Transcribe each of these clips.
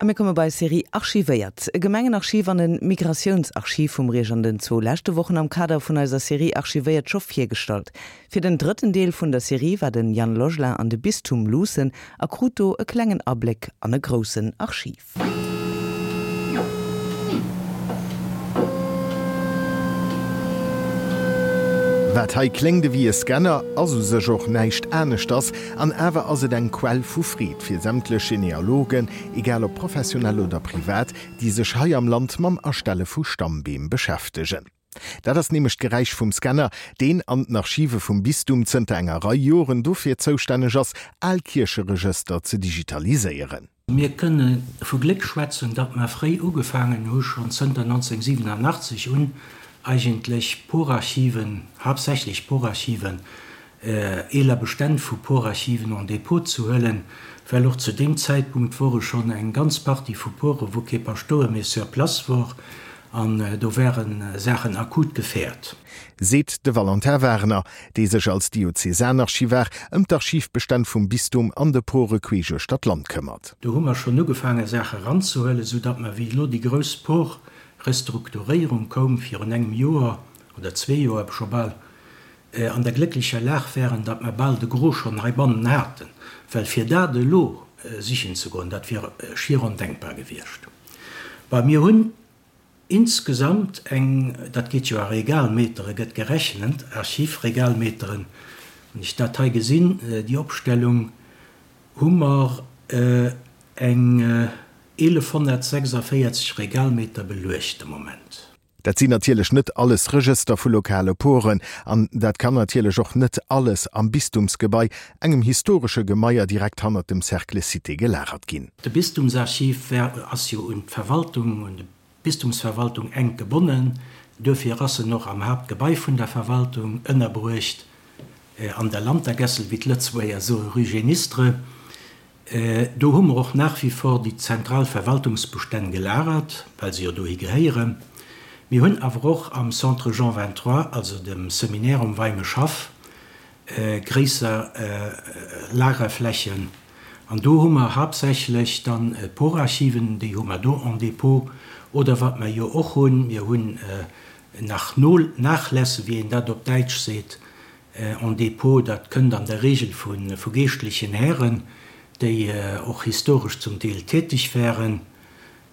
A mir komme bei Serie Archivéiert. E Gemengenarchiv an e Migratiounsarchiv hu mir Iech an den zwou leschte Wochen am Kader vun eiser Serie Archivéiert scho virgestallt. Fir den drëtten Deel vun der Serie war den Yann Logelin an de Bistum luussen a krut do e klengen Abléck an e groussen Archiv. Wat hei kléngt ewéi e Scanner, ass u sech och näischt aneschters, an awer ass et eng Quell vu Freed fir sämtlech Genealogen, egal ob professionell oder privat, déi sech hei am Land mam Erstelle vu Stammbeem beschäftegen. Dat ass nämlech d'Geräisch vum Scanner, deen an den Archive vum Bistum zënter enger Rei Joren dofir zoustänneg ass, al Kiercheregëster ze digitaliséieren. Mir kënne vu Gléck schwätzen, datt mer fréi ugefaangen hu schonn zënter 1987 un eigentlech Porarchiven, haaptsächlech Porarchiven, eeler Bestänn vu Porarchiven en dépôt ze huelen, well och zu deem Zäitpunkt wore schonn eng ganz Partie vu Pore wou kee Paschtouer méi sur place wor an do ware Saachen akut gefährt. Seet de Valentin Wagener, dee sech als Diözesanarchivar ëm d'Archivbestänn vum Bistum an de Pore queesch uechter d'Land këmmert. Do hu mer schonn ugefaange Saache ranzehuelen, sou datt mer, wéi elo déi grouss Por-Restrukturéierung koum virun engem Joer oder zwee Joer scho bal, an der glécklecher Lag wären, datt mer bal de Gros schonn heibannen haten, well fir dat elo sichen ze goen, dat wier schier ondenkbar gewiescht. Bon, mir hunn insgesamt eng, dat geet jo a Regalmetere gëtt gerechent, Archivregalmeteren, wann ech dat hei gesinn, déi Opstellung, hu mer eng 1.146 Regalmeter beluecht de Moment. Dat sinn natierlech net alles Regëster vu lokale Poren an dat kann natierlech och net alles am Bistumsgebai, engem historesche Gemaier direkt hannert dem Cercle Cité, gelagert ginn. De Bistumsarchiv war, ass jo un d'Verwaltung, un d'Bistumsverwaltung enk gebonnen. Duerfir ass en och am Haaptgebai vun der Verwaltung ënnerbruecht, an der Lantergässel, wéi d'Lëtzebuerger soe, rue Génistre. Do hu mer och nach wie vor déi zentral Verwaltungsbestänn gelagert, well se jo dohi gehéieren. Mir hunn awer och am Centre Jean 23, also dem Seminaire um Weimeschhaff, gréisser Lagerflächen. An do hu mer haaptsächlech dann d'Porarchiven, déi hu mer do en dépôt. Oder wat mer jo och hunn, mir hunn nach Nachlässe, wéi een dat op Däitsch seet, En dépôt, dat kënnt an der Regel vu geeschtlechen Hären, déi och historesch zum Deel täteg waren,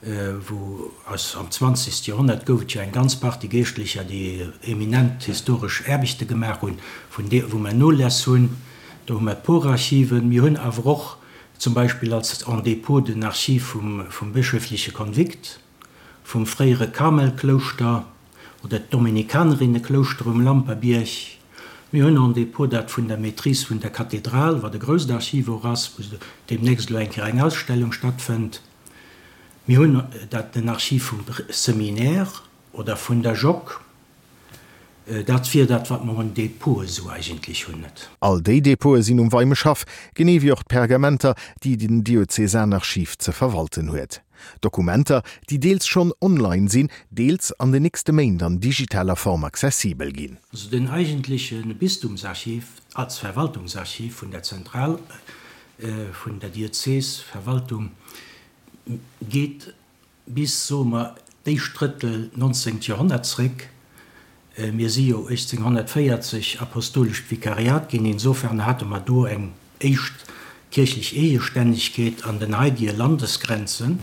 wou aus am zwanzegste Joerhonnert gouf et jo eng ganz Partie Geeschtlecher, déi eminent historesch Aarbechte gemaach hunn, vun deer wou mer Noläss hunn. Do hu mer d'Porarchiven. Mir hunn awer och zum Beispill als en dépôt den Archiv vum bëschöfleche Konvikt, vum fréiere Karmelklouschter oder d'Dominikanerinneklouschter um Lamperbierg. Mir hunn en Dépôt, dat vun der Maîtrise vun der Kathedral, wat e grousst Archiv och ass, wou deemnächst elo eng Kéier eng Ausstellung stattfënnt. Mir hunn dat, den Archiv vum Seminaire oder vun der Jock. Dat wier dat, wat mer un Dépôte esou eigentlech hunn, net? All déi Dépôte sinn um Weimeschhaff, genee wéi och d'Pergamenter, déi den Diözesanarchiv ze verwalten huet. Dokumenter, déi deels schonn online sinn, deels an den nächste Méint an digitaler Form accessibel ginn. Also den eigentleche Bistumsarchiv als Verwaltungsarchiv vun der Zentral vun der Diözesverwaltung geet bis, soe mer, d'éischt Drëttel 19. Joerhonnert zréck. Mir si jo 1840 apostolescht Vikariat ginn, insofern hate mer do eng éischt kierchlech Eegestännegkeet an den haidige Landesgrenzen.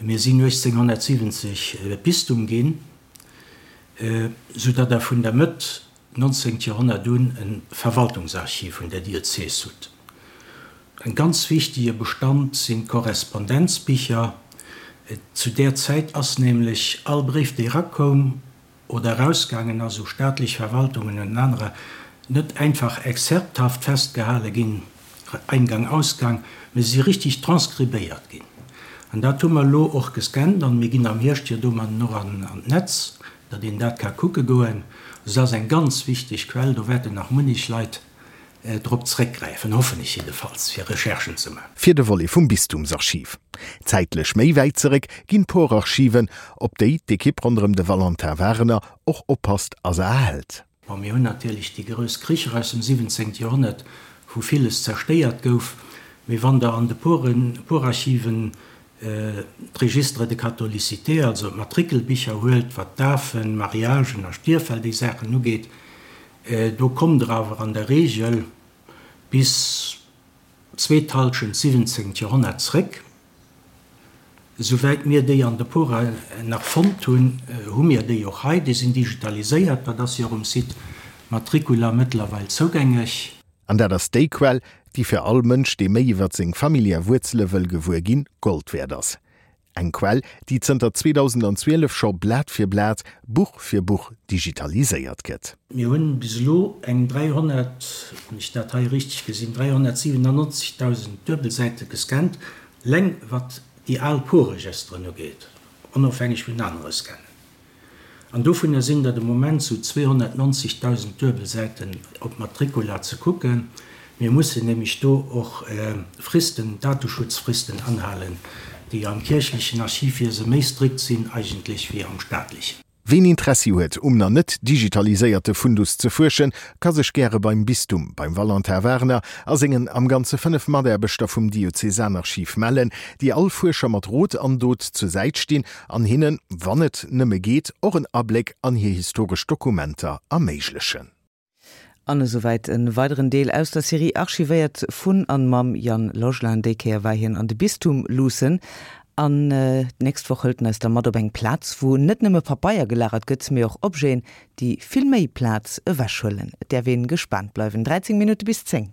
Mir sinn 1870 Bistum ginn, soudatt Der vun der Mëtt 19. Joerhonnert un e Verwaltungsarchiv vun der Diözes hutt. En ganz wichtege Bestand sinn d'Korrespondenzbicher. Zu där Zäit ass nämlech all Bréif, dee erakoum oder erausgaangen ass u staatlech Verwaltungen und anerer, net einfach exzerpthaft festgehale ginn, Eingang, Ausgang, mä si si richtig transkribéiert ginn. An dat hu mer elo och gescannt an mir ginn am Hierscht jo domatten och an d'Netz, datt een dat ka kucke goen. Also dat ass eng ganz wichteg Quell, do wäerten nach munnech Leit drop zréckgräifen, hoffen ech jiddefalls, fir Recherchen ze maachen. Fir de Volet vum Bistumsarchiv. Zäitlech méi wäit zeréck ginn d'Porarchiven, op déi d'Ekipp ronderëm de Valentin Wagener och oppasst a se erhält. Bon, mir hunn natierlech déi grouss Kricher aus dem 17. Joerhonnert, wou villes zerstéiert gouf, mee wann Der an de Poren, Porarchiven. d'Registre de catholicité, also d'Matrikelbicher huelt, wat Dafen, Mariagen a Stierffäll, déi Saachen ugeet, do kommt Der awer an der Regel bis zweet Halschent siwwenzéngt Joerhonnert zréck. Esouwäit mir déi an de Pora nach fonnt hunn, hu mir déi och hei. Déi sinn digitaliséiert, dat ass jo och um Site Matricula mëttlerweil zougängeg. An dat ass déi Quell, déi fir all Mënsch, dee méi iwwert seng familiär Wuerzele wëll gewuer ginn, Gold wäert ass. Eng Quell, déi zënter 2012 scho Blat fir Blat, Buch fir Buch digitaliséiert gëtt. Mir hunn bis elo eng 300, wann ech dat hei richteg gesinn, 397.000 Duebelsäite gescannt, leng wat déi al Porregisteren ugeet, onofhängeg vun anere Scannen. An dovunner sinn der de Moment sou 290.000 Duebelsäiten op Matricula ze kucken. Mir mussen nämlech do och Fristen, Dateschutzfristen anhalen, déi am kierchlechen Archivwiese méi strikt sinn eigentlech wéi am staatlechen. Ween Interessi huet um na net digitaliséierte Fundus ze fuerschen, ka sech gäre beim Bistum, beim Valentin Wagner a sengen am Ganze 5 Mataarbechter vum Diözesanarchiv mellen, déi all Fuerscher mat Rot an Dot zur Säit stinn an hinnen, wann et nëmme geet, och en Abléck an hir historesch Dokumenter erméiglechen. An esouwäit e weideren Deel aus der Serie Archivéiert vun an mam Yann Logelin. Déi Kéier war hien an de Bistum luussen. An d'nächst Woch hëlt en eis da mat op eng Plaz, wou net nëmme Papeier gelagert gëtt, mee och Objeten, déi vill méi Plaz ewechhuelen. Et däerf een gespaant bleiwen. 13 Minutte bis 10.